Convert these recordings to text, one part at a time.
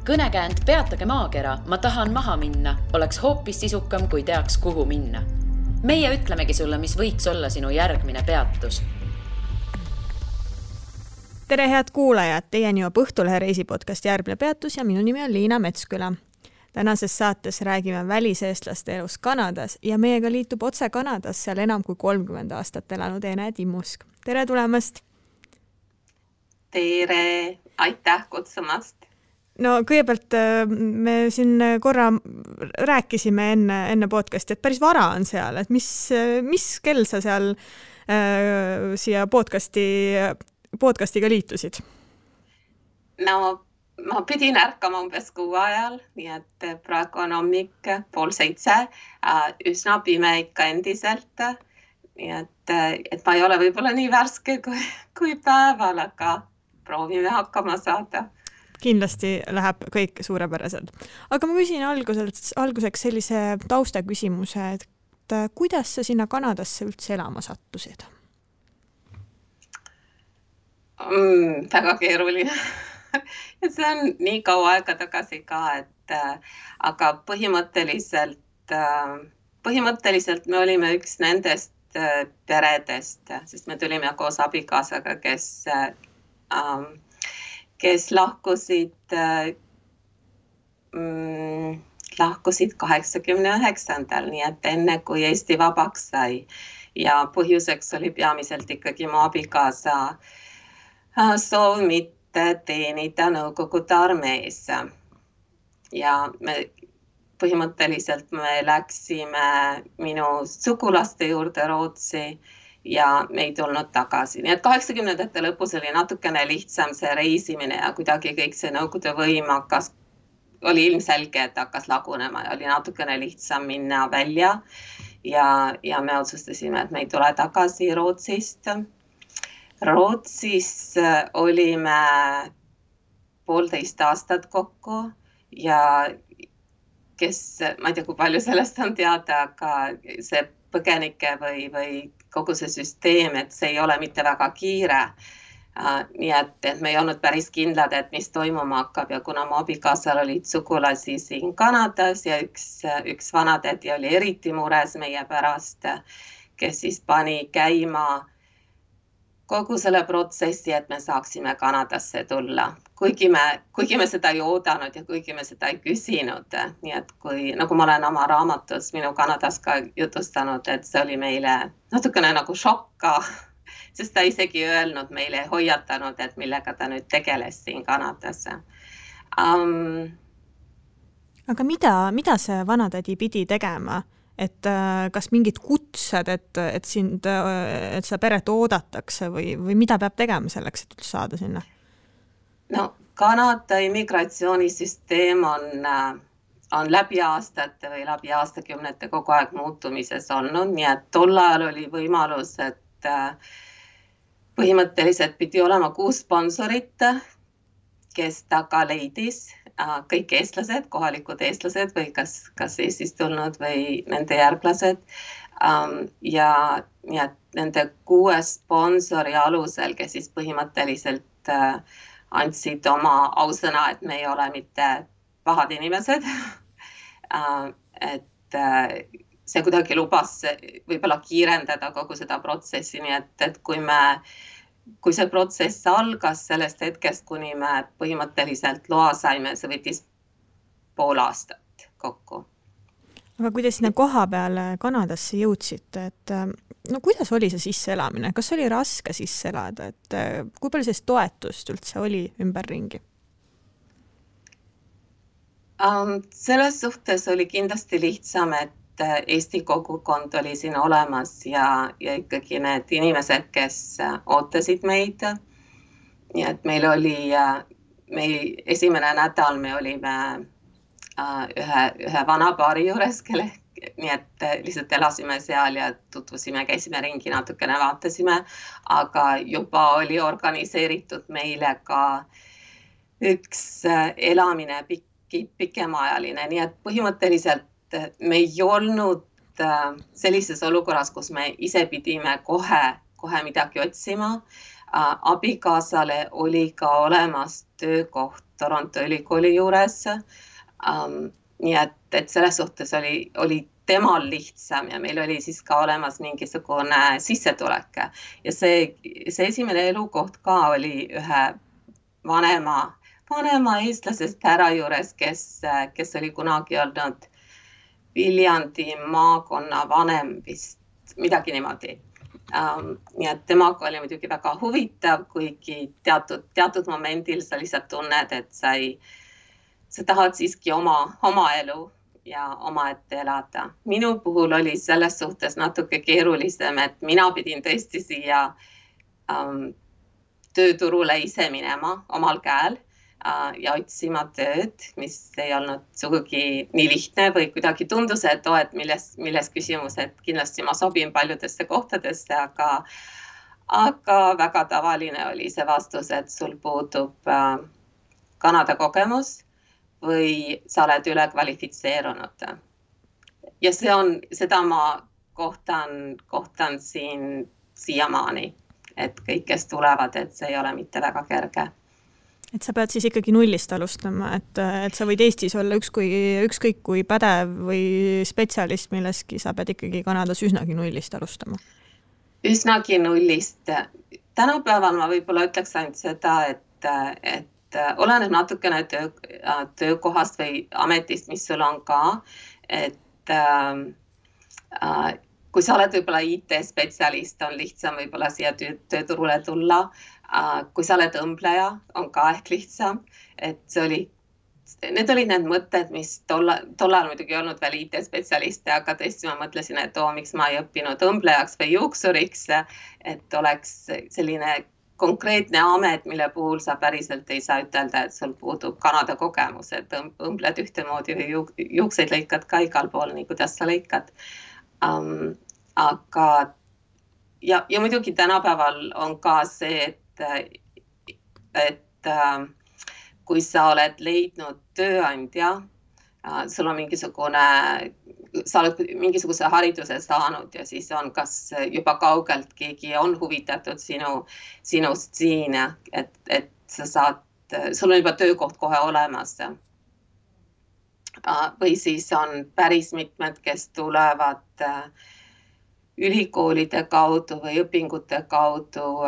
kõnekäänd Peatage maakera, ma tahan maha minna, oleks hoopis sisukam, kui teaks, kuhu minna. Meie ütlemegi sulle, mis võiks olla sinu järgmine peatus. Tere head kuulajad, teieni juba Õhtulehe reisipodcast Järgmine peatus ja minu nimi on Liina Metsküla. Tänases saates räägime väliseestlaste elus Kanadas ja meiega liitub otse Kanadas seal enam kui 30 aastat elanud Ene Timmusk. Tere tulemast! Tere! Aitäh kutsumast! No kõigepealt me siin korra rääkisime enne podcasti, et päris vara on seal, et mis kell sa seal siia podcastiga liitusid? No ma pidin ärkama umbes 6 ajal, nii et praegu on hommik 6:30, üsna pime ikka endiselt, nii et ma ei ole võib-olla nii värske kui päeval, aga proovime hakkama saada. Kindlasti läheb kõik suurepäraselt. Aga ma küsin alguseks sellise tausta küsimuse, et kuidas sa sinna Kanadasse üldse elama sattusid? Väga keeruline. See on nii kaua aega tagasi ka, aga põhimõtteliselt me olime üks nendest peredest, sest me tulime koos abikaasaga, kes lahkusid 89. Nii et enne kui Eesti vabaks sai ja põhjuseks oli peamiselt ikkagi mu abikaasa soov mitte teenida Nõukogude armees. Ja põhimõtteliselt me läksime minu sugulaste juurde Rootsi ja me ei tulnud tagasi. Nii et 80. lõpus oli natukene lihtsam see reisimine ja kuidagi kõik see Nõukogude võim oli ilmselge, et hakkas lagunema ja oli natukene lihtsam minna välja ja me otsustasime, et me ei tule tagasi Rootsist. Rootsis olime 1,5 aastat kokku ja ma ei tea, kui palju sellest on teada, aga see põgenike või kogu see süsteem, et see ei ole mitte väga kiire. Nii et me ei olnud päris kindlad, et mis toimuma hakkab ja kuna mu abikaasal olid sugulasi siin Kanadas ja üks vanatädi oli eriti mures meie pärast, kes siis pani käima kogu selle protsessi, et me saaksime Kanadasse tulla. Kuigi me seda ei oodanud ja kuigi me seda ei küsinud. Nii et nagu ma olen oma raamatus minu Kanadas ka jutustanud, et see oli meile natukene nagu šokka, sest ta isegi öelnud meile, hoiatanud, et millega ta nüüd tegeles siin Kanadas. Aga mida see vanatädi pidi tegema? Et kas mingid kutsed, et seda peret oodatakse või mida peab tegema selleks, et üldse saada sinna? No, Kanada immigratsioonisüsteem on läbi aastate või läbi aastakümnete kogu aeg muutumises olnud, nii et tol ajal oli võimalus, et põhimõtteliselt pidi olema 6 sponsorit, kes taga leidis kõik eestlased, kohalikud eestlased või kas Eestist tulnud või nende järglased. Ja nende 6 sponsori alusel, kes siis põhimõtteliselt andsid oma ausõna, et me ei ole mitte pahad inimesed. Et see kuidagi lubas võib-olla kiirendada kogu seda protsessi, nii et kui see protsess algas sellest hetkest, kuni me põhimõtteliselt loa saime, see võttis 1,5 aastat kokku. Aga kui te sinna koha peale Kanadasse jõudsite, et kuidas oli see sisseelamine? Kas oli raske sisse elada? Et kui palju sellist toetust üldse oli ümberringi? Selles suhtes oli kindlasti lihtsam, et Eesti kogukond oli siin olemas ja ikkagi need inimesed, kes ootasid meid. Nii et meil esimene nädal me olime ühe vana paari juures, nii et lihtsalt elasime seal ja tutvusime, käisime ringi, natukene vaatasime, aga juba oli organiseeritud meile ka üks elamine pikemaajaline, nii et põhimõtteliselt me ei olnud sellises olukorras, kus me ise pidime kohe midagi otsima. Abikaasale oli ka olemas töökoht Toronto ülikooli juures. Nii et selles suhtes oli temal lihtsam ja meil oli siis ka olemas mingisugune sissetulek. Ja see esimene elukoht ka oli ühe vanema eestlasest härra juures, kes oli kunagi olnud Viljandi maakonna vanem vist, midagi niimoodi. Nii et temaga oli muidugi väga huvitav, kuigi teatud momendil sa lihtsalt tunned, et sa tahad siiski oma elu ja omaette elada. Minu puhul oli selles suhtes natuke keerulisem, et mina pidin tõesti siia tööturule ise minema omal käel ja otsima tööd, mis ei olnud sugugi nii lihtne või kuidagi tundus, et milles küsimus, et kindlasti ma sobin paljudesse kohtadesse, aga väga tavaline oli see vastus, et sul puudub Kanada kogemus või sa oled üle kvalifitseerunud. Ja seda ma kohtan siin siiamaani, et kõik, kes tulevad, et see ei ole mitte väga kerge. Et sa pead siis ikkagi nullist alustama, et sa võid Eestis olla ükskõik kui pädev või spetsialist milleski, sa pead ikkagi Kanadas üsnagi nullist alustama. Üsnagi nullist. Tänapäeval ma võib-olla ütleks ainult seda, et oleneb natukene töökohast või ametist, mis sul on ka, et kui sa oled võib-olla IT-spetsialist, on lihtsam võib-olla siia tööturule tulla. Kui sa oled õmbleja, on ka ehk lihtsam, et need olid need mõtted, mis tollal muidugi ei olnud veel IT-spetsialiste, aga tõesti ma mõtlesin, et miks ma ei õppinud õmblejaks või juuksuriks, et oleks selline konkreetne amet, mille puhul sa päriselt ei saa ütelda, et sul puudub Kanada kogemus, et õmbled ühtemoodi või juukseid lõikad ka igal pool, nii kuidas sa lõikad. Aga ja muidugi tänapäeval on ka see, et kui sa oled leidnud tööandja, sul on sa oled mingisuguse hariduse saanud ja siis on kas juba kaugelt keegi on huvitatud sinust siin, et sul on juba töökoht kohe olemas. Või siis on päris mitmed, kes tulevad ülikoolide kaudu või õpingute kaudu,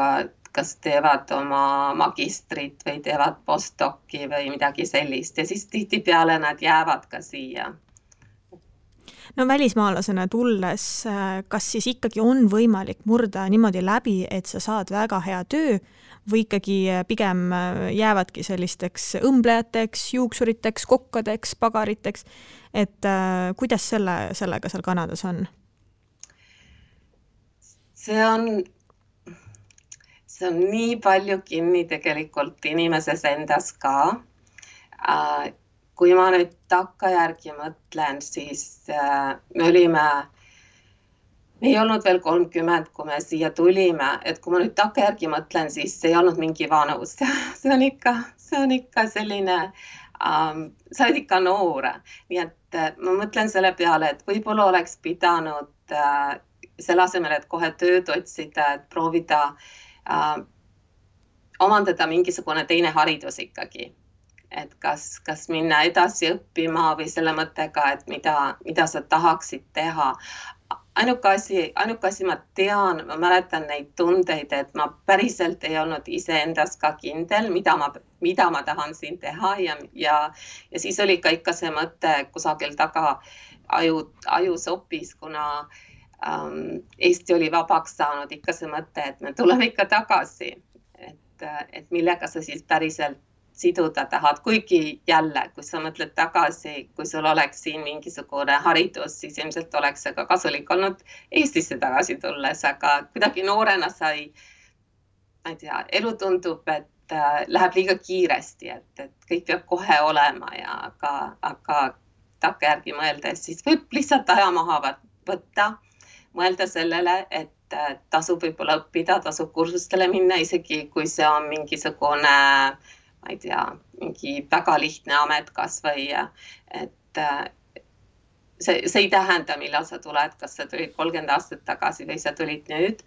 kas teevad oma magistrit või teevad postdoci või midagi sellist ja siis tihtipeale nad jäävad ka siia. No välismaalasena tulles, kas siis ikkagi on võimalik murda niimoodi läbi, et sa saad väga hea töö või ikkagi pigem jäävadki sellisteks õmblejateks, juuksuriteks, kokkadeks, pagariteks, et kuidas sellega seal Kanadas on? See on nii palju kinni tegelikult inimeses endas ka. Kui ma nüüd takkajärgi mõtlen, siis me ei olnud veel 30, kui me siia tulime, et kui ma nüüd takkajärgi mõtlen, siis ei olnud mingi vanus. See on ikka selline, sa oled ikka noor. Nii et ma mõtlen selle peale, et võib-olla oleks pidanud selle asemel, et kohe tööd otsida, et proovida omandada mingisugune teine haridus ikkagi. Et kas minna edasi õppima või selle mõttega, et mida sa tahaksid teha. Ainuke asi ma tean, ma mäletan neid tundeid, et ma päriselt ei olnud iseendas ka kindel, mida ma tahan siin teha ja siis oli ka ikka see mõte kusagil taga ajus hoopis, kuna Eesti oli vabaks saanud ikka see mõte, et me tuleme ikka tagasi, et millega sa siis päriselt siduda tahad, kuigi jälle, kui sa mõtled tagasi, kui sul oleks siin mingisugune haridus, siis ilmselt oleks see ka kasulik olnud Eestisse tagasi tulles, aga kuidagi noorena ma ei tea, elu tundub, et läheb liiga kiiresti, et kõik peab kohe olema ja aga takkajärgi mõeldes, siis võib lihtsalt aja maha võtta, mõelda sellele, et tasub võib-olla õppida, tasub kursustele minna, isegi kui see on mingisugune ma ei tea, mingi väga lihtne amet kas või, et see ei tähenda, millal sa tuled, kas sa tulid 30 aastat tagasi või sa tulid nüüd.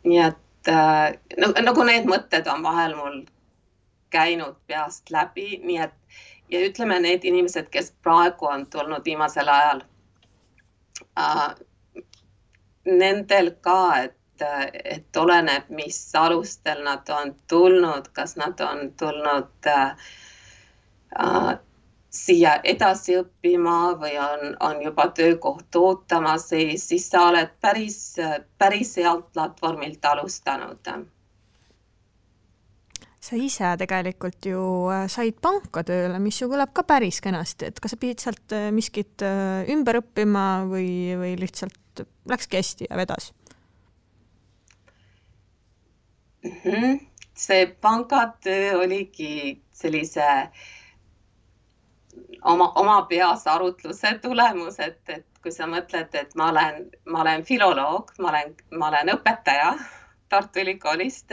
nii et nagu need mõtted on vahel mul käinud peast läbi, nii et ja ütleme need inimesed, kes praegu on tulnud viimasel ajal, nendel ka, et oleneb, mis alustel nad on tulnud, kas nad on tulnud siia edasi õppima või on juba töökoht ootamas, siis sa oled päris healt platvormilt alustanud. Sa ise tegelikult ju said panka tööle, mis ju kõlab ka päris kenasti, et kas sa pidid sealt miskit ümber õppima või lihtsalt läkski hästi ja vedas? See pangatöö oligi sellise oma peas arutluse tulemus, et kui sa mõtled, et ma olen filoloog, ma olen õpetaja Tartu Ülikoolist,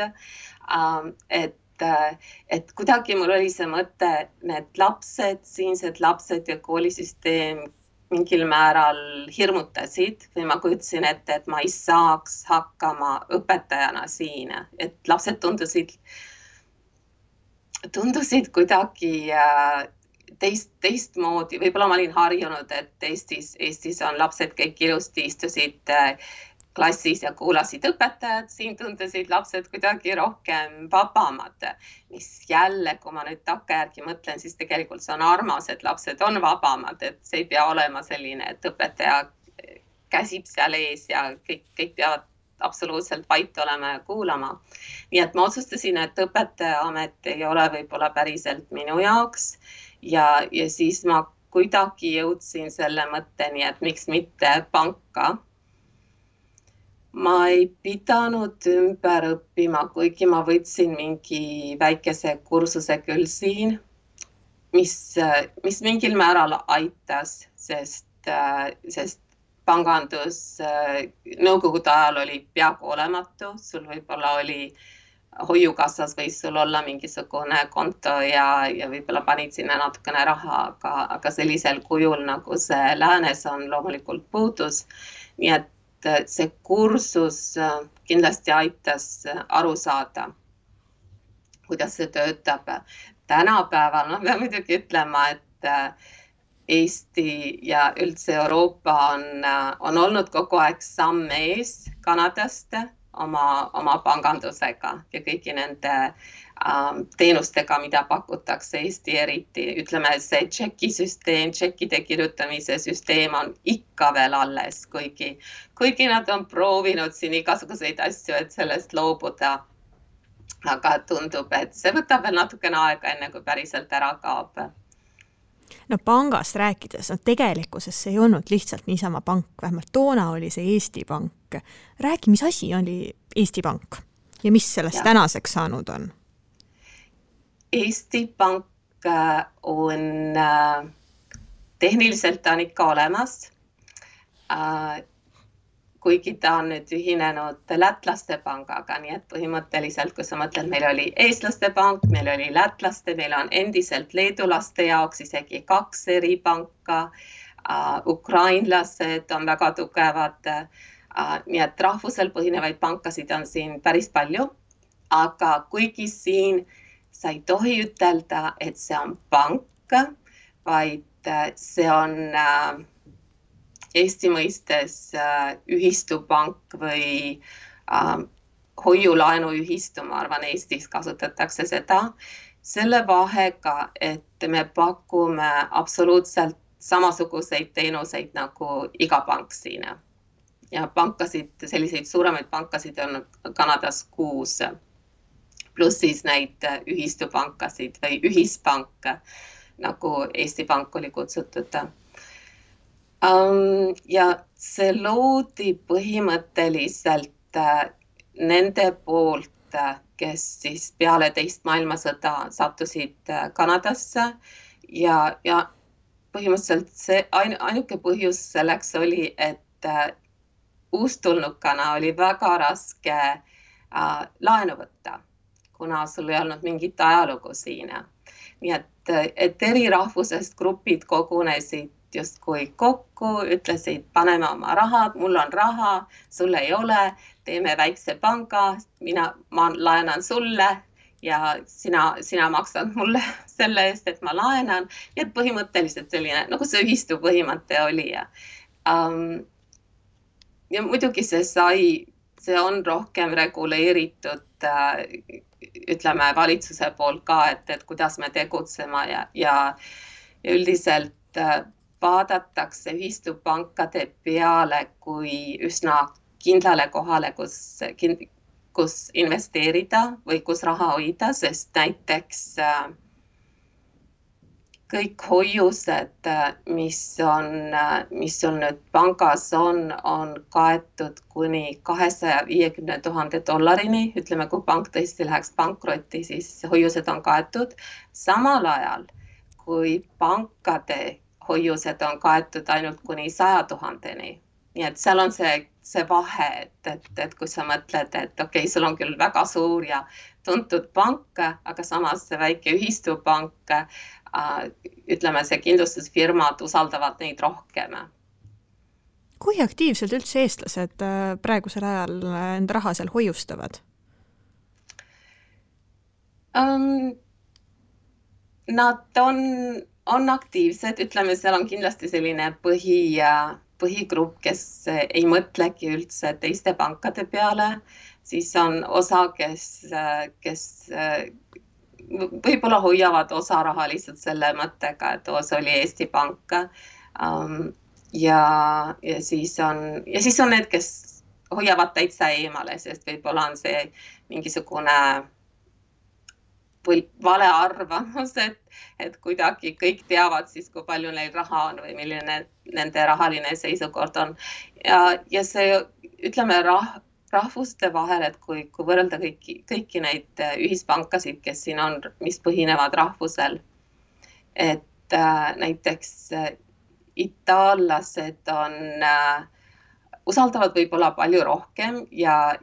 et kuidagi mul oli see mõte, need lapsed, siinsed lapsed ja koolisüsteem mingil määral hirmutasid või ma kujutasin ette, et ma ei saaks hakkama õpetajana siin, et lapsed tundusid kuidagi teistmoodi, võib-olla ma olin harjunud, et Eestis on lapsed kõik ilusti istusid klassis ja kuulasid õpetajad, siin tundusid lapsed kuidagi rohkem vabamad, mis jälle, kui ma nüüd takkajärgi mõtlen, siis tegelikult see on armas, et lapsed on vabamad, et see ei pea olema selline, et õpetaja käsib seal ees ja kõik peavad absoluutselt vait olema ja kuulama. Nii et ma otsustasin, et õpetaja amet ei ole võib-olla päriselt minu jaoks ja siis ma kuidagi jõudsin selle mõtteni, et miks mitte panka. Ma ei pidanud ümber õppima, kuigi ma võtsin mingi väikese kursuse küll siin, mis mingil määral aitas, sest pangandus nõukogude ajal oli peaaegu olematu, sul võib-olla oli hoiukassas võis sul olla mingisugune konto ja võib-olla panid sinna natukene raha, aga sellisel kujul, nagu see läänes on, loomulikult puudus. Nii et see kursus kindlasti aitas aru saada, kuidas see töötab. Tänapäeval, ma pean muidugi ütlema, et Eesti ja üldse Euroopa on olnud kogu aeg samm ees Kanadast oma pangandusega ja kõigi nende teenustega, mida pakutakse Eesti eriti. Ütleme, see tšekisüsteem, tšekkide kirjutamise süsteem on ikka veel alles, kuigi nad on proovinud siin igasuguseid asju, et sellest loobuda. Aga tundub, et see võtab veel natukene aega, enne kui päriselt ära kaob. No pangast rääkides, tegelikkuses see ei olnud lihtsalt niisama pank, vähemalt toona oli see Eesti Pank. Räägi, mis asi oli Eesti Pank ja mis sellest tänaseks saanud on? Eesti Pank on tehniliselt on ikka olemas, kuigi ta on nüüd ühinenud lätlaste pangaga, nii et põhimõtteliselt, kui sa mõtled, meil oli eestlaste pank, meil oli lätlaste, meil on endiselt leedulaste jaoks isegi 2 eri panka, ukrainlased on väga tugevad, nii et rahvusel põhinevaid pankasid on siin päris palju, aga kuigi siin sa ei tohi ütelda, et see on pank, vaid see on Eesti mõistes ühistupank või hoiulaenuühistu, ma arvan, Eestis kasutatakse seda, selle vahega, et me pakume absoluutselt samasuguseid teenuseid nagu iga pank siin. Ja pankasid, selliseid suuremaid pankasid on Kanadas 6. Pluss siis neid ühistupankasid või ühispank, nagu Eesti Pank oli kutsutud. Ja see loodi põhimõtteliselt nende poolt, kes siis peale teist maailmasõda sattusid Kanadasse ja põhimõtteliselt see ainuke põhjus selleks oli, et uustulnukana oli väga raske laenu võtta, kuna sul ei olnud mingit ajalugu siin. Nii et eri rahvusest grupid kogunesid justkui kokku, ütlesid, paneme oma rahad, mul on raha, sul ei ole, teeme väikse panga, ma laenan sulle ja sina maksad mulle selle eest, et ma laenan. Ja põhimõtteliselt selline, nagu see ühistu põhimõte oli. Ja muidugi see on rohkem reguleeritud, ütleme valitsuse poolt ka, et kuidas me tegutsema ja üldiselt vaadatakse ühistupankade peale kui üsna kindlale kohale, kus investeerida või kus raha hoida, sest näiteks kõik hoiused, mis on nüüd pangas on kaetud kuni $250,000. Ütleme, kui pank tõesti läheks pankrotti, siis hoiused on kaetud. Samal ajal, kui pankade hoiused on kaetud ainult kuni 100,000. Nii et seal on see vahe, et kui sa mõtled, et okei, sul on küll väga suur ja tuntud pank, aga samas see väike ühistupank, ütleme, see kindlustusfirmad usaldavad neid rohkem. Kui aktiivselt üldse eestlased praegusel ajal enda raha seal hoiustavad? Nad on aktiivsed, ütleme, seal on kindlasti selline põhigrupp, kes ei mõtlegi üldse teiste pankade peale, siis on osa, kes võib-olla hoiavad osa raha lihtsalt selle mõttega, et see oli Eesti Pank. Ja siis on need, kes hoiavad täitsa eemale, sest võib-olla on see mingisugune vale arvamus, et kuidagi kõik teavad siis, kui palju neil raha on või milline nende rahaline seisukord on. Ja see, ütleme, rahvuste vahel, et kui võrrelda kõiki neid ühispankasid, kes siin on, mis põhinevad rahvusel, et näiteks itaallased usaldavad võib-olla palju rohkem ja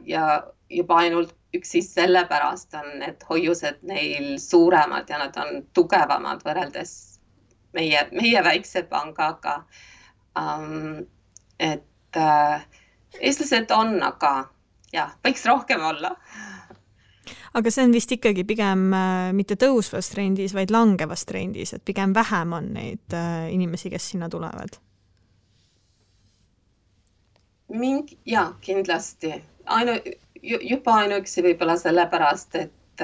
juba ainult üksi sellepärast on need hoiused neil suuremad ja nad on tugevamad võrreldes meie väikse pangaga. Et eestlased on, aga jah, võiks rohkem olla. Aga see on vist ikkagi pigem mitte tõusvas trendis, vaid langevas trendis, et pigem vähem on neid inimesi, kes sinna tulevad. Jaa, kindlasti. Juba ainuüksi võib-olla sellepärast, et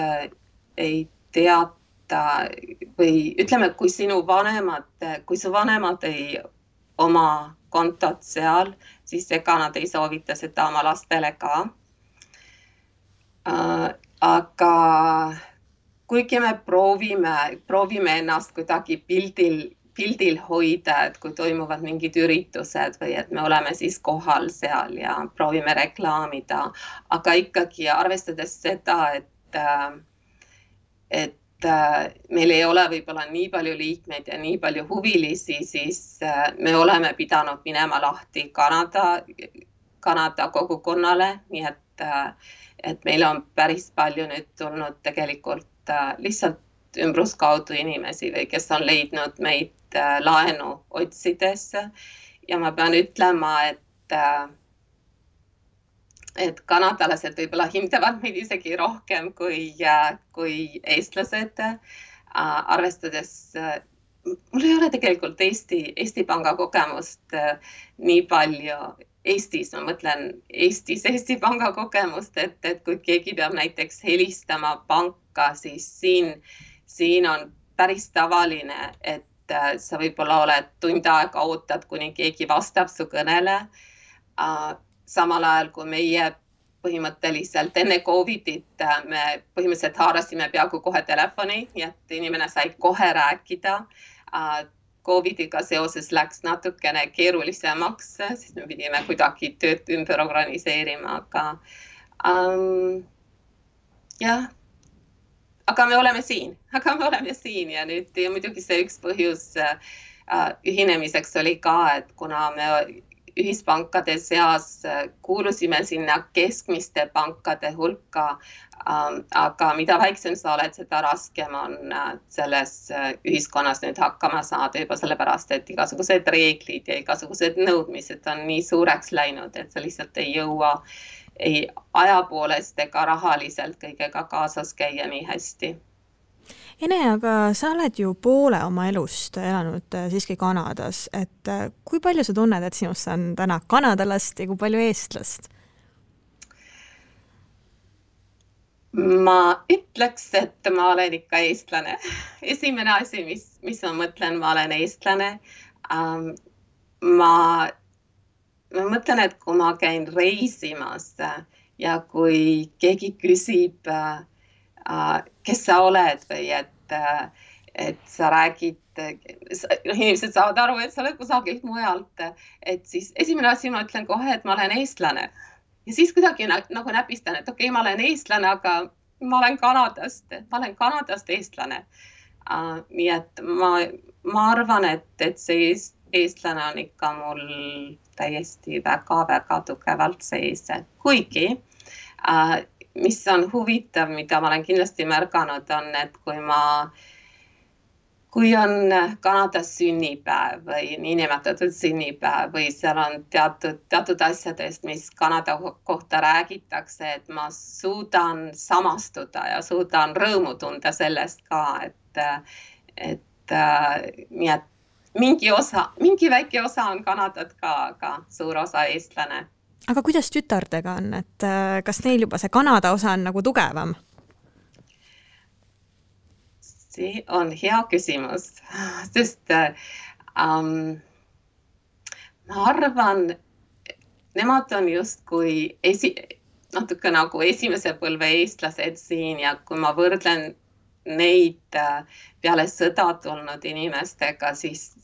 ei teata või ütleme, kui su vanemad ei oma kontot seal, siis ega nad ei soovita seda oma lastele ka. Aga kuigi me proovime ennast kuidagi pildil hoida, et kui toimuvad mingid üritused või et me oleme siis kohal seal ja proovime reklaamida, aga ikkagi arvestades seda, et meil ei ole võib-olla nii palju liikmeid ja nii palju huvilisi, siis me oleme pidanud minema lahti Kanada kogukonnale, nii et meil on päris palju nüüd tulnud tegelikult lihtsalt ümbruskaudu inimesi või kes on leidnud meid laenu otsides ja ma pean ütlema, et kanadalased võib-olla hindavad meid isegi rohkem kui eestlased, arvestades, mul ei ole tegelikult Eesti Panga kogemust nii palju Eestis, ma mõtlen Eesti Panga kogemust, et kui keegi peab näiteks helistama panka, siis siin on päris tavaline, et sa võib-olla oled tund aega ootad, kuni keegi vastab su kõnele. Samal ajal, kui meie põhimõtteliselt enne Covidit me põhimõtteliselt haarasime peaaegu kohe telefoni, et inimene sai kohe rääkida. Covidiga seoses läks natukene keerulisemaks, siis me pidime kuidagi tööd ümber organiseerima, jah. Aga me oleme siin ja nüüd ja muidugi see üks põhjus ühinemiseks oli ka, et kuna me ühispankade seas kuulusime sinna keskmiste pankade hulka, aga mida väiksem sa oled, seda raskem on selles ühiskonnas nüüd hakkama saada juba sellepärast, et igasugused reeglid ja igasugused nõudmised on nii suureks läinud, et sa lihtsalt ei jõua ei aja poolest ega rahaliselt kõigega kaasas käia nii hästi. Ene, aga sa oled ju poole oma elust elanud siiski Kanadas, et kui palju sa tunned, et sinust on täna kanadalast ja kui palju eestlast? Ma ütleks, et ma olen ikka eestlane. Esimene asi, mis ma mõtlen, ma olen eestlane. Ma mõtlen, et kui ma käin reisimas ja kui keegi küsib, kes sa oled või et sa räägid, inimesed saavad aru, et sa oled kusagilt mujalt, et siis esimene asi ma ütlen kohe, et ma olen eestlane. Ja siis kuidagi nagu näpistan, et okei, ma olen eestlane, aga ma olen Kanadast eestlane. Nii et ma arvan, et see eestlane on ikka mul täiesti väga-väga tugevalt sees. Kuigi mis on huvitav, mida ma olen kindlasti märganud, on, et kui on Kanadas sünnipäev või niinimetatud sünnipäev või seal on teatud asjadest, mis Kanada kohta räägitakse, et ma suudan samastuda ja suudan rõõmu tunda sellest ka, et nii et mingi väike osa on Kanadat ka, aga suur osa eestlane. Aga kuidas tütardega on, et kas neil juba see Kanada osa on nagu tugevam? See on hea küsimus, sest ma arvan, nemad on justkui natuke nagu esimese põlve eestlased siin ja kui ma võrdlen neid peale sõda tulnud inimestega, siis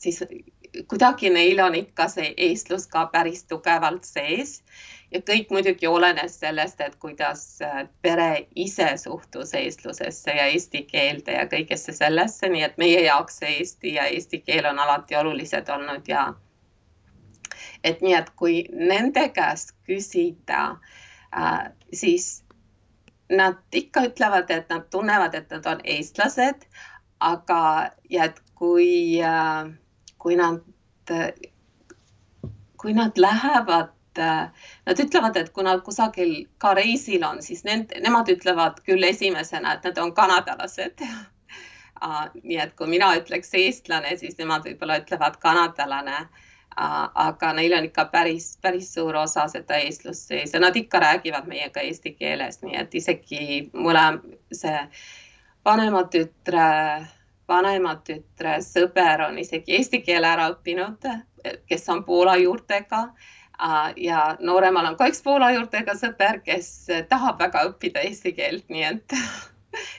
kuidagi neil on ikka see eestlus ka päris tugevalt sees ja kõik muidugi olenes sellest, et kuidas pere ise suhtus eestlusesse ja eesti keelde ja kõigesse sellesse, nii et meie jaoks see eesti ja eesti keel on alati olulised olnud ja et nii, et kui nende käest küsida, siis nad ikka ütlevad, et nad tunnevad, et nad on eestlased, aga ja et kui nad lähevad, nad ütlevad, et kui nad kusagil ka reisil on, siis nemad ütlevad küll esimesena, et nad on kanadalased. Nii et kui mina ütleks eestlane, siis nemad võib-olla ütlevad kanadalane, aga neil on ikka päris suur osa seda eestlust sees ja nad ikka räägivad meiega eesti keeles, nii et isegi see vanema tütre sõber on isegi eesti keele ära õppinud, kes on Poola juurtega ja nooremal on ka üks Poola juurtega sõber, kes tahab väga õppida eesti keelt, nii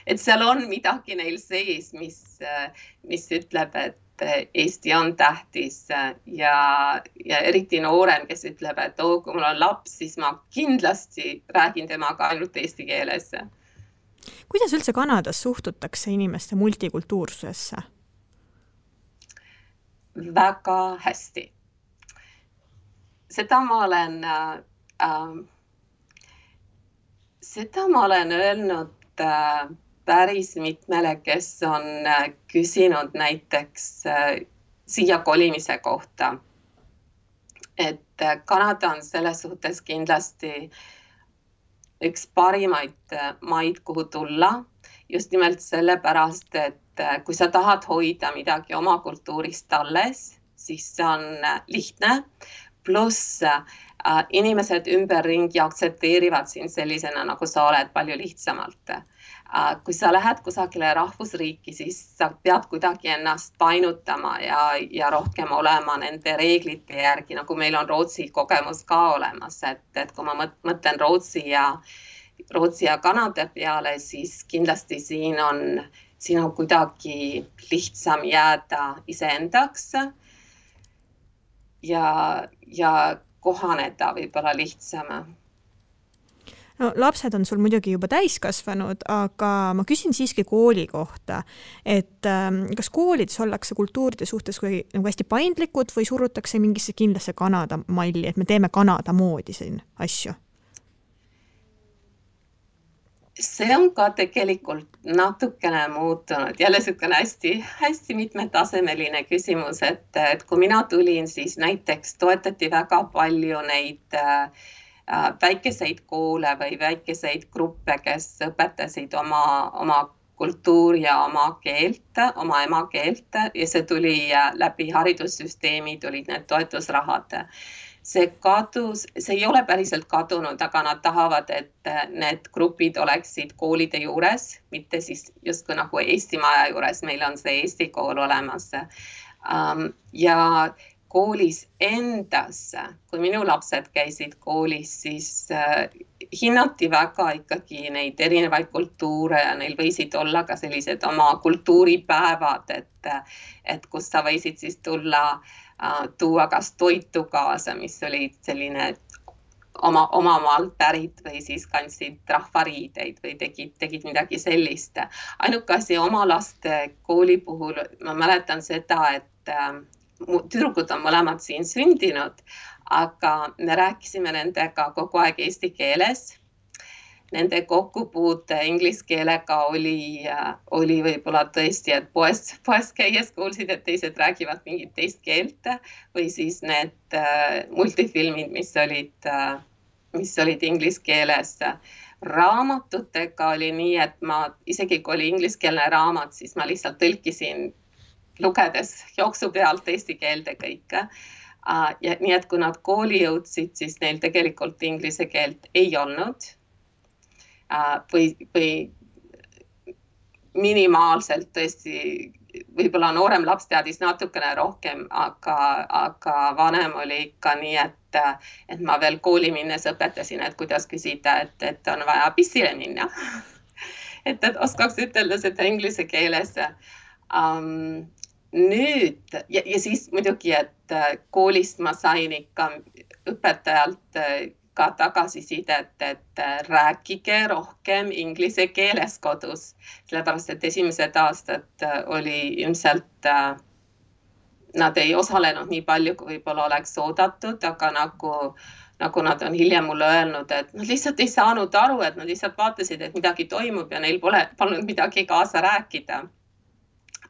et seal on midagi neil sees, mis ütleb, et Eesti on tähtis ja eriti noorem, kes ütleb, et kui mul on laps, siis ma kindlasti räägin temaga ainult eesti keeles. Kuidas üldse Kanadas suhtutakse inimeste multikultuursusesse? Väga hästi. Seda ma olen öelnud päris mitmele, kes on küsinud näiteks siia kolimise kohta. Et Kanada on selles suhtes kindlasti üks parimaid maid, kuhu tulla, just nimelt sellepärast, et kui sa tahad hoida midagi oma kultuurist alles, siis see on lihtne, pluss inimesed ümberringi aktsepteerivad sind sellisena, nagu sa oled palju lihtsamalt. Kui sa lähed kusagile rahvusriiki, siis sa pead kuidagi ennast painutama ja rohkem olema nende reeglite järgi, nagu meil on Rootsi kogemus ka olemas, et kui ma mõtlen Rootsi ja Kanada peale, siis kindlasti siin on kuidagi lihtsam jääda iseendaks ja kohaneda võib-olla lihtsam. No, lapsed on sul muidugi juba täiskasvanud, aga ma küsin siiski kooli kohta, et kas koolides ollakse kultuuride suhtes nagu hästi paindlikud või surutakse mingisse kindlasse Kanada malli, et me teeme Kanada moodi siin asju? See on ka tegelikult natukene muutunud. Jälle selline hästi mitmetasemeline küsimus, et kui mina tulin, siis näiteks toetati väga palju neid väikeseid koole või väikeseid gruppe, kes õpetasid oma kultuuri ja oma keelt, oma emakeelt ja see tuli läbi haridussüsteemi, tulid need toetusrahad. See kadus, see ei ole päriselt kadunud, aga nad tahavad, et need grupid oleksid koolide juures, mitte siis justkui nagu Eesti maja juures, meil on see Eesti kool olemas. Ja koolis endas, kui minu lapsed käisid koolis, siis hinnati väga ikkagi neid erinevaid kultuure ja neil võisid olla ka sellised oma kultuuripäevad, et kus sa võisid siis tuua kas toitu kaasa, mis oli selline oma maalt pärit või siis kandsid rahvariideid või tegid midagi sellist. Ainuke asi oma laste kooli puhul, ma mäletan seda, et tüdrukud on mõlemad siin sündinud, aga me rääkisime nendega kogu aeg eesti keeles. Nende kokkupuute inglise keelega oli võib-olla tõesti, et poes käies kuulsid, et teised räägivad mingit teist keelt või siis need multifilmid, mis olid inglise keeles. Raamatutega oli nii, et ma isegi kui oli ingliskeelne raamat, siis ma lihtsalt tõlkisin lugedes jooksu pealt eesti keelde kõike. Ja nii, et kui nad kooli jõudsid, siis neil tegelikult inglise keelt ei olnud. Või minimaalselt tõesti, võib-olla noorem laps teadis natukene rohkem, aga vanem oli ikka nii, et ma veel kooli minnes õpetasin, et kuidas küsida, et on vaja pissile minna. et oskaks ütelda seda inglise keeles. Nüüd, ja siis muidugi, et koolist ma sain ikka õpetajalt ka tagasisidet, et rääkige rohkem inglise keeles kodus, sellepärast, et esimesed aastad oli ilmselt, nad ei osalenud nii palju, kui võib-olla oleks oodatud, aga nagu nad on hiljem mulle öelnud, et nad lihtsalt ei saanud aru, et nad lihtsalt vaatasid, et midagi toimub ja neil polnud midagi kaasa rääkida.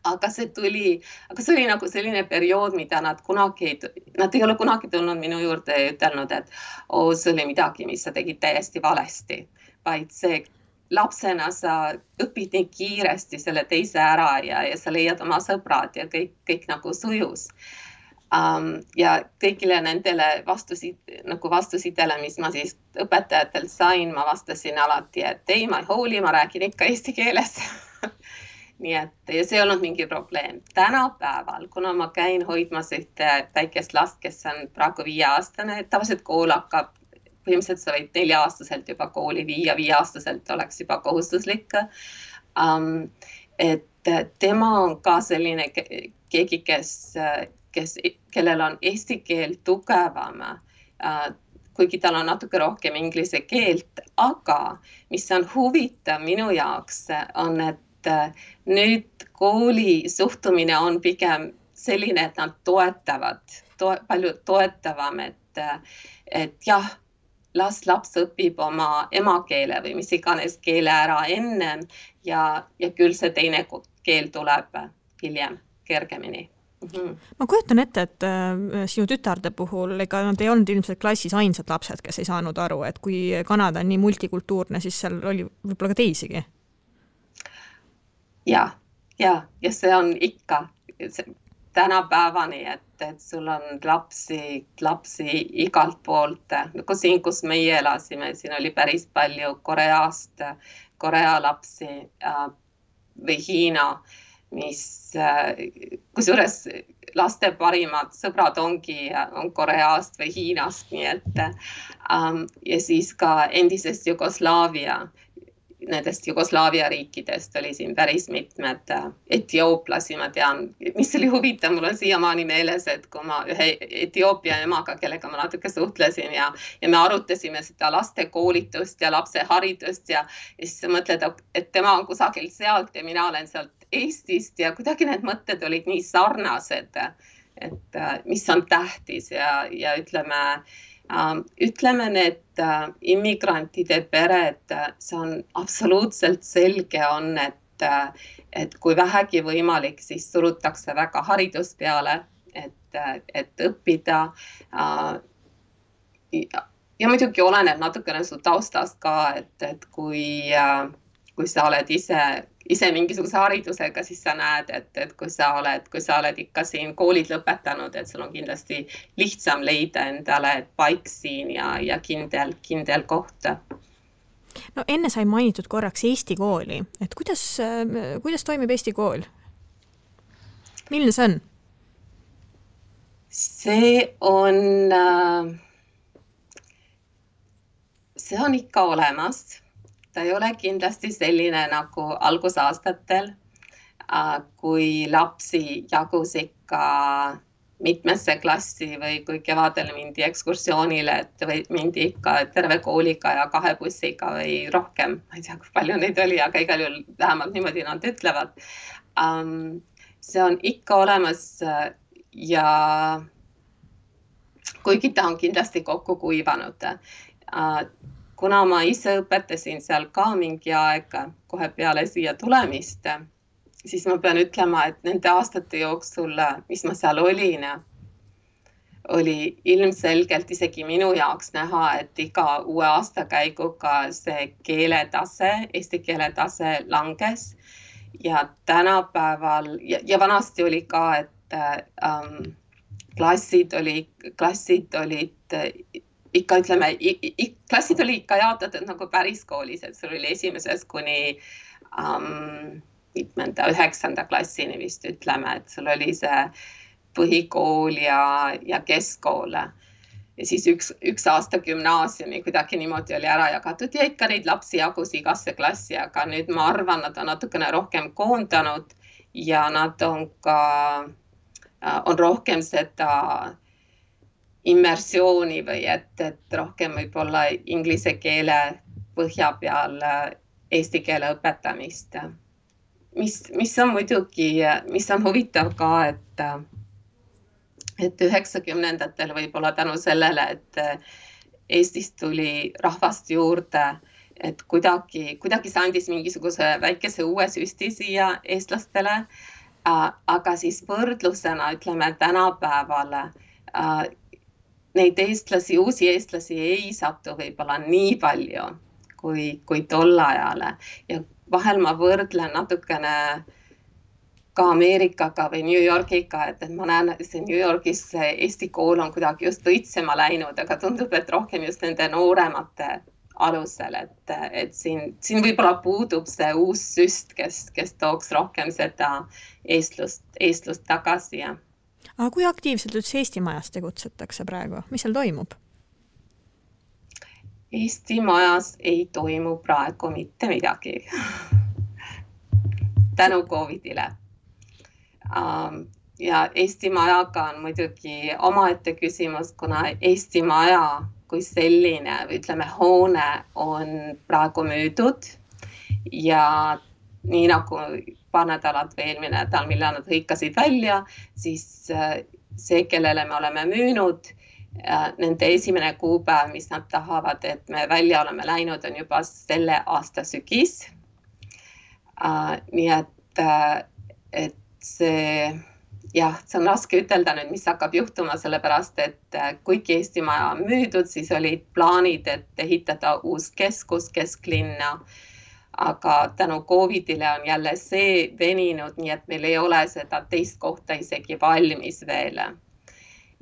Aga see oli nagu selline periood, mida nad ei ole kunagi tulnud minu juurde ja ütelnud, et see oli midagi, mis sa tegid täiesti valesti, vaid see lapsena sa õpid nii kiiresti selle teise ära ja sa leiad oma sõbrad ja kõik nagu sujus. Ja kõigile nendele vastusidele, mis ma siis õpetajatelt sain, ma vastasin alati, et ei, ma ei hooli, ma räägin ikka eesti keeles. Nii et ja see ei olnud mingi probleem. Tänapäeval, kuna ma käin hoidmas ühte väikest last, kes on praegu 5-aastane, tavaliselt kool hakkab, põhimõtteliselt sa võid 4-aastaselt juba kooli viia, 5-aastaselt oleks juba kohustuslik. Et tema on ka selline keegi, kellel on eesti keel tugevam, kuigi tal on natuke rohkem inglise keelt, aga mis on huvitav minu jaoks on, et nüüd kooli suhtumine on pigem selline, et nad palju toetavam, et jah, laps õpib oma emakeele või mis iganes keele ära ennem ja küll see teine keel tuleb hiljem kergemini. Ma kujutan ette, et sinu tütarde puhul ega nad ei olnud ilmselt klassis ainsad lapsed, kes ei saanud aru, et kui Kanada on nii multikultuurne, siis seal oli võib-olla ka teisigi. Ja see on ikka tänapäevani, et sul on lapsi igalt poolt. Siin, kus meie elasime, siin oli päris palju Korea lapsi või Hiina, kusjuures laste parimad sõbrad on Koreast või Hiinast, nii et ja siis ka endisest Jugoslaavia. nendest Jugoslaavia riikidest oli siin päris mitmed etiooplasi, ma tean, mis oli huvitav, mul on siiamaani meeles, et kui ma ühe Etioopia emaga, kellega ma natuke suhtlesin ja me arutasime seda laste koolitust ja lapse haridust ja siis mõtled, et tema on kusagil sealt ja mina olen sealt Eestist ja kuidagi need mõtted olid nii sarnased, et mis on tähtis ja ütleme need immigrantide pered, see on absoluutselt selge on, et kui vähegi võimalik, siis surutakse väga haridus peale, et õppida. Ja muidugi oleneb natukene su taustast ka, et kui sa oled ise mingisuguse haridusega, siis sa näed, et kui sa oled ikka siin koolid lõpetanud, et sul on kindlasti lihtsam leida endale paik siin ja kindel koht. No enne sai mainitud korraks Eesti kooli, et kuidas toimib Eesti kool? Milline see on? See on ikka olemas. Ta ei ole kindlasti selline nagu algusaastatel, kui lapsi jagus ikka mitmesse klassi või kui kevadel mindi ekskursioonile, et mindi ikka terve kooliga ja 2 bussiga või rohkem. Ma ei tea, kui palju neid oli, aga igal juhul vähemalt niimoodi nad ütlevad. See on ikka olemas ja kuigi ta on kindlasti kokku kuivanud. Kuna ma ise õpetasin seal ka mingi aeg kohe peale siia tulemist, siis ma pean ütlema, et nende aastate jooksul, mis ma seal olin, oli ilmselgelt isegi minu jaoks näha, et iga uue aastakäiguga see keeletase, eesti keeletase langes ja tänapäeval ja vanasti oli ka, et klassid olid ikka ütleme, klassid oli ikka jaotatud nagu päris koolis, et sul oli esimesest kuni 9. klassini vist ütleme, et sul oli see põhikool ja keskkool. Ja siis üks aasta gümnaasiumi kuidagi niimoodi oli ära jagatud ja ikka neid lapsi jagus igasse klassi, aga nüüd ma arvan, nad on natukene rohkem koondanud ja nad on rohkem seda immersiooni või et rohkem võib-olla inglise keele põhja peal eesti keele õpetamist. Mis on muidugi, mis on huvitav ka, et 90-ndatel võib-olla tänu sellele, et Eestist tuli rahvast juurde, et kuidagi see andis mingisuguse väikese uue süsti siia eestlastele, aga siis võrdlusena ütleme tänapäeval neid eestlasi, uusi eestlasi ei satu võib-olla nii palju kui tol ajale. Ja vahel ma võrdlen natukene ka Ameerikaga või New Yorkiga, et ma näen, et see New Yorgis Eesti kool on kuidagi just õitsema läinud, aga tundub, et rohkem just nende nooremate alusel, et siin võib-olla puudub see uus süst, kes tooks rohkem seda eestlust tagasi. Aga kui aktiivselt üldse Eesti majas tegutsetakse praegu? Mis seal toimub? Eesti majas ei toimu praegu mitte midagi. Tänu COVIDile. Ja Eesti majaga on muidugi omaette küsimus, kuna Eesti maja kui selline, ütleme, hoone on praegu müüdud ja nii nagu paar nädalat või eelmine nädal, millal nad hõikasid välja, siis see, kellele me oleme müünud, nende esimene kuupäev, mis nad tahavad, et me välja oleme läinud, on juba selle aasta sügis. Nii et see on raske ütelda nüüd, mis hakkab juhtuma, sellepärast, et kuigi Eesti maja on müüdud, siis olid plaanid, et ehitada uus keskus kesklinna, aga tänu COVIDile on jälle see veninud, nii et meil ei ole seda teist kohta isegi valmis veel.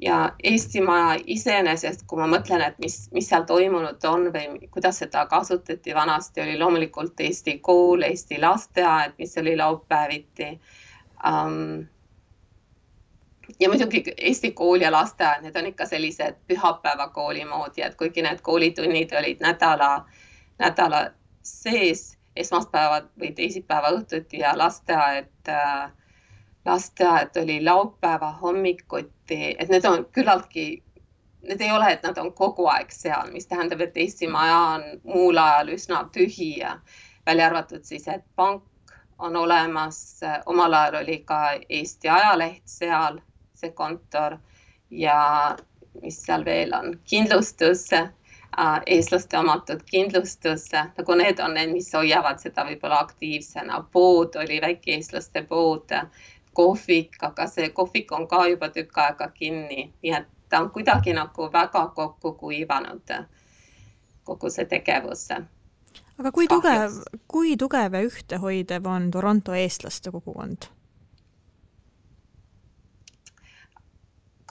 Ja Eesti maja iseenesest, kui ma mõtlen, et mis seal toimunud on või kuidas seda kasutati vanasti, oli loomulikult Eesti kool, Eesti lasteaed, mis oli laupäeviti. Ja muidugi Eesti kool ja lasteaed, need on ikka sellised pühapäevakooli moodi, et kuigi need koolitunnid olid nädala sees, esmaspäeva või teisipäeva õhtuti ja lasteaed oli laupäeva hommikuti, et need on küllaltki, need ei ole, et nad on kogu aeg seal, mis tähendab, et Eesti maja on muul ajal üsna tühi ja välja arvatud siis, et pank on olemas, omal ajal oli ka Eesti ajaleht seal, see kontor ja mis seal veel on, kindlustus, eestlaste omatud kindlustus, nagu need on need, mis hoiavad seda võib-olla aktiivsena. Pood oli väike eestlaste pood, kohvik, aga see kohvik on ka juba tükk aega kinni, nii et ta on kuidagi nagu väga kokku kuivanud kogu see tegevus. Aga kui tugev ja ühtehoidev on Toronto eestlaste kogukond?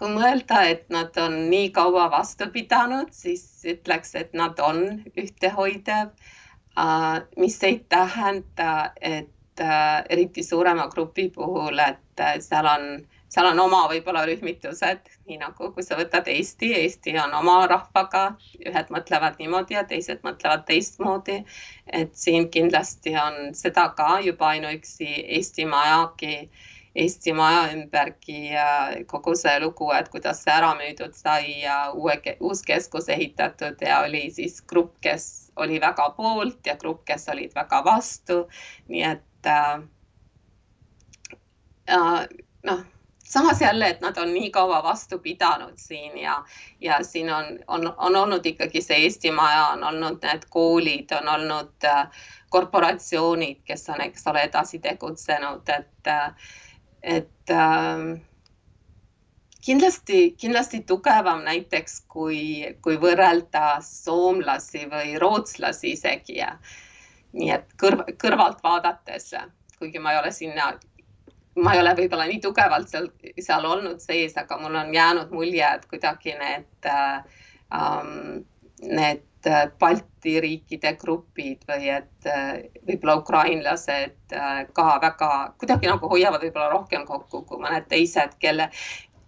Kui mõelda, et nad on nii kaua vastu pidanud, siis ütleks, et nad on ühtehoidev, mis ei tähenda, et eriti suurema grupi puhul, et seal on oma võib-olla rühmitused, nii nagu kui sa võtad Eesti on oma rahvaga, ühed mõtlevad niimoodi ja teised mõtlevad teistmoodi, et siin kindlasti on seda ka juba ainuüksi Eesti maja ümbergi kogu see lugu, et kuidas see ära müüdud sai ja uus keskus ehitatud ja oli siis grupp, kes oli väga poolt ja grupp, kes olid väga vastu, nii et samas jälle, et nad on nii kaua vastu pidanud siin ja siin on olnud ikkagi see Eesti maja, on olnud need koolid, on olnud korporatsioonid, kes on, eks ole, edasi tegutsenud, et kindlasti tugevam näiteks, kui võrrelda soomlasi või rootslasi isegi. Nii et kõrvalt vaadates, kuigi ma ei ole võib-olla nii tugevalt seal olnud sees, aga mul on jäänud mulje, et kuidagi need Balti riikide grupid või et võib-olla ukrainlased ka väga kuidagi nagu hoiavad võib-olla rohkem kokku kui mõned teised,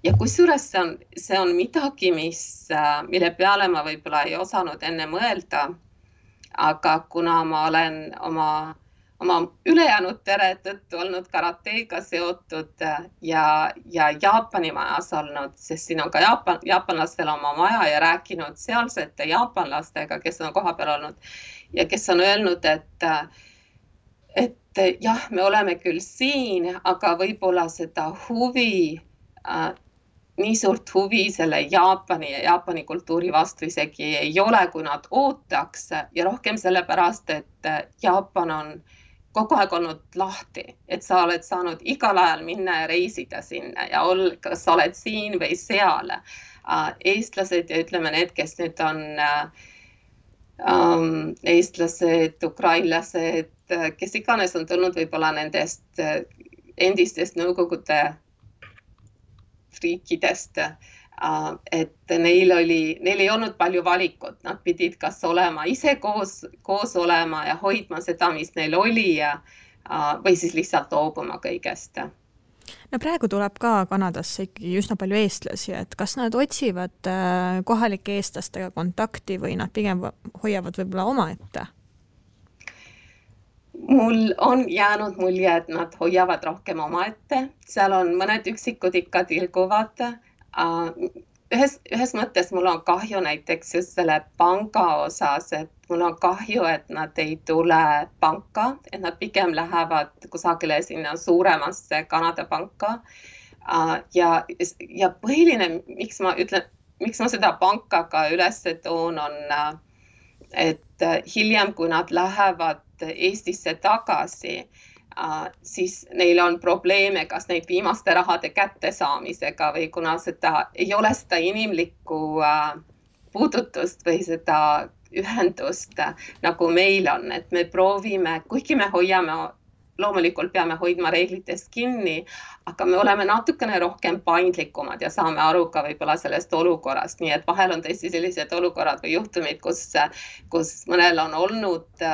ja kusjuures see on midagi, mille peale ma võib-olla ei osanud enne mõelda, aga kuna ma olen oma ülejäänud pere tõttu olnud karateega seotud ja Jaapani majas olnud, sest siin on ka jaapanlastel oma maja ja rääkinud sealsete jaapanlastega, kes on kohapeal olnud ja kes on öelnud, et jah, me oleme küll siin, aga võib-olla seda nii suurt huvi selle Jaapani ja Jaapani kultuuri vastu isegi ei ole, kui nad ootaks ja rohkem sellepärast, et Jaapan on kogu aeg olnud lahti, et sa oled saanud igal ajal minna ja reisida sinna ja kas sa oled siin või seal. Eestlased ja ütleme need, kes nüüd on eestlased, ukrainlased, kes iganes on tulnud võib-olla nendest endistest Nõukogude riikidest, et neil ei olnud palju valikut, nad pidid kas olema ise koos olema ja hoidma seda, mis neil oli või siis lihtsalt loobuma kõigest. No praegu tuleb ka Kanadasse ikkagi üsna palju eestlasi, et kas nad otsivad kohalike eestlastega kontakti või nad pigem hoiavad võib-olla omaette? Mul on jäänud mulje, et nad hoiavad rohkem omaette, seal on mõned üksikud ikka tilguvad. Ühes mõttes mul on kahju näiteks just selle panga osas, et mul on kahju, et nad ei tule panka, et nad pigem lähevad kusagile sinna suuremasse Kanada panka. Ja põhiline, miks ma seda panka ka üles toon, on, et hiljem, kui nad lähevad Eestisse tagasi, siis neil on probleeme, kas neid viimaste rahade kättesaamisega või kuna ei ole seda inimlikku puudutust või seda ühendust, nagu meil on, et me proovime, kuigi me loomulikult peame hoidma reeglitest kinni, aga me oleme natukene rohkem paindlikumad ja saame aru ka võib-olla sellest olukorrast, nii et vahel on tõesti sellised olukorrad või juhtumid, kus mõnel on olnud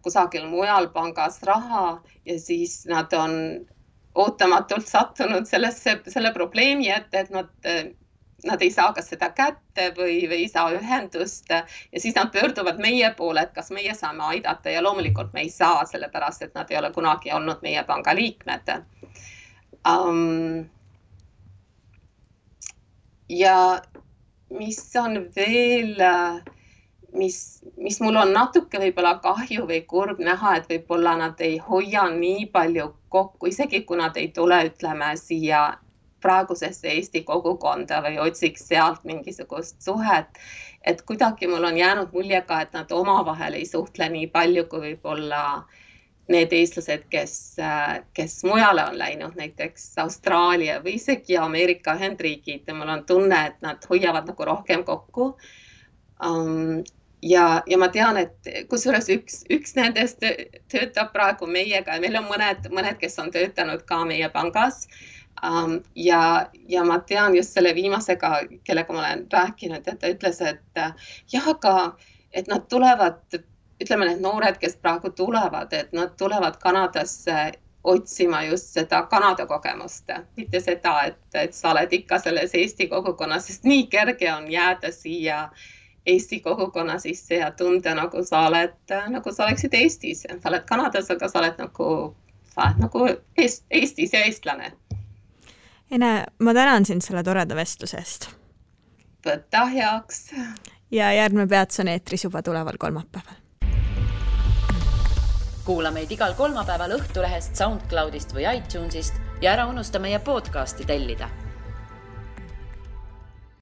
kusagil mujal pangas raha ja siis nad on ootamatult sattunud selle probleemi ette, et nad nad ei saa kas seda kätte või ei saa ühendust ja siis nad pöörduvad meie poole, et kas meie saame aidata ja loomulikult me ei saa, sellepärast et nad ei ole kunagi olnud meie panga liikmed. Ja mis on veel, mis mul on natuke võib-olla kahju või kurb näha, et võib-olla nad ei hoia nii palju kokku, isegi kui nad ei tule, ütleme, siia praegusesse Eesti kogukonda või otsiks sealt mingisugust suhet, et kuidagi mul on jäänud mulje ka, et nad omavahel ei suhtle nii palju kui võib-olla need eestlased, kes mujale on läinud, näiteks Austraalia või isegi Ameerika Ühendriigid ja mul on tunne, et nad hoiavad nagu rohkem kokku. Ja ma tean, et kusjuures üks nendest töötab praegu meiega ja meil on mõned, kes on töötanud ka meie pangas. Ja ma tean just selle viimasega, kellega ma olen rääkinud, et ta ütles, et jah, aga et nad tulevad, ütleme need noored, kes praegu tulevad, et nad tulevad Kanadasse otsima just seda Kanada kogemust, mitte seda, et sa oled ikka selles Eesti kogukonnas, sest nii kerge on jääda siia Eesti kogukonna sisse ja tunda, nagu sa oleksid Eestis. Sa oled Kanadas, aga sa oled nagu Eestis ja eestlane. Ene, ma tänan sind selle toreda vestlusest. Võta heaks. Ja järgmine peatus on eetris juba tuleval kolmapäeval. Kuula meid igal kolmapäeval Õhtulehest, SoundCloudist või iTunesist ja ära unusta meie podcasti tellida.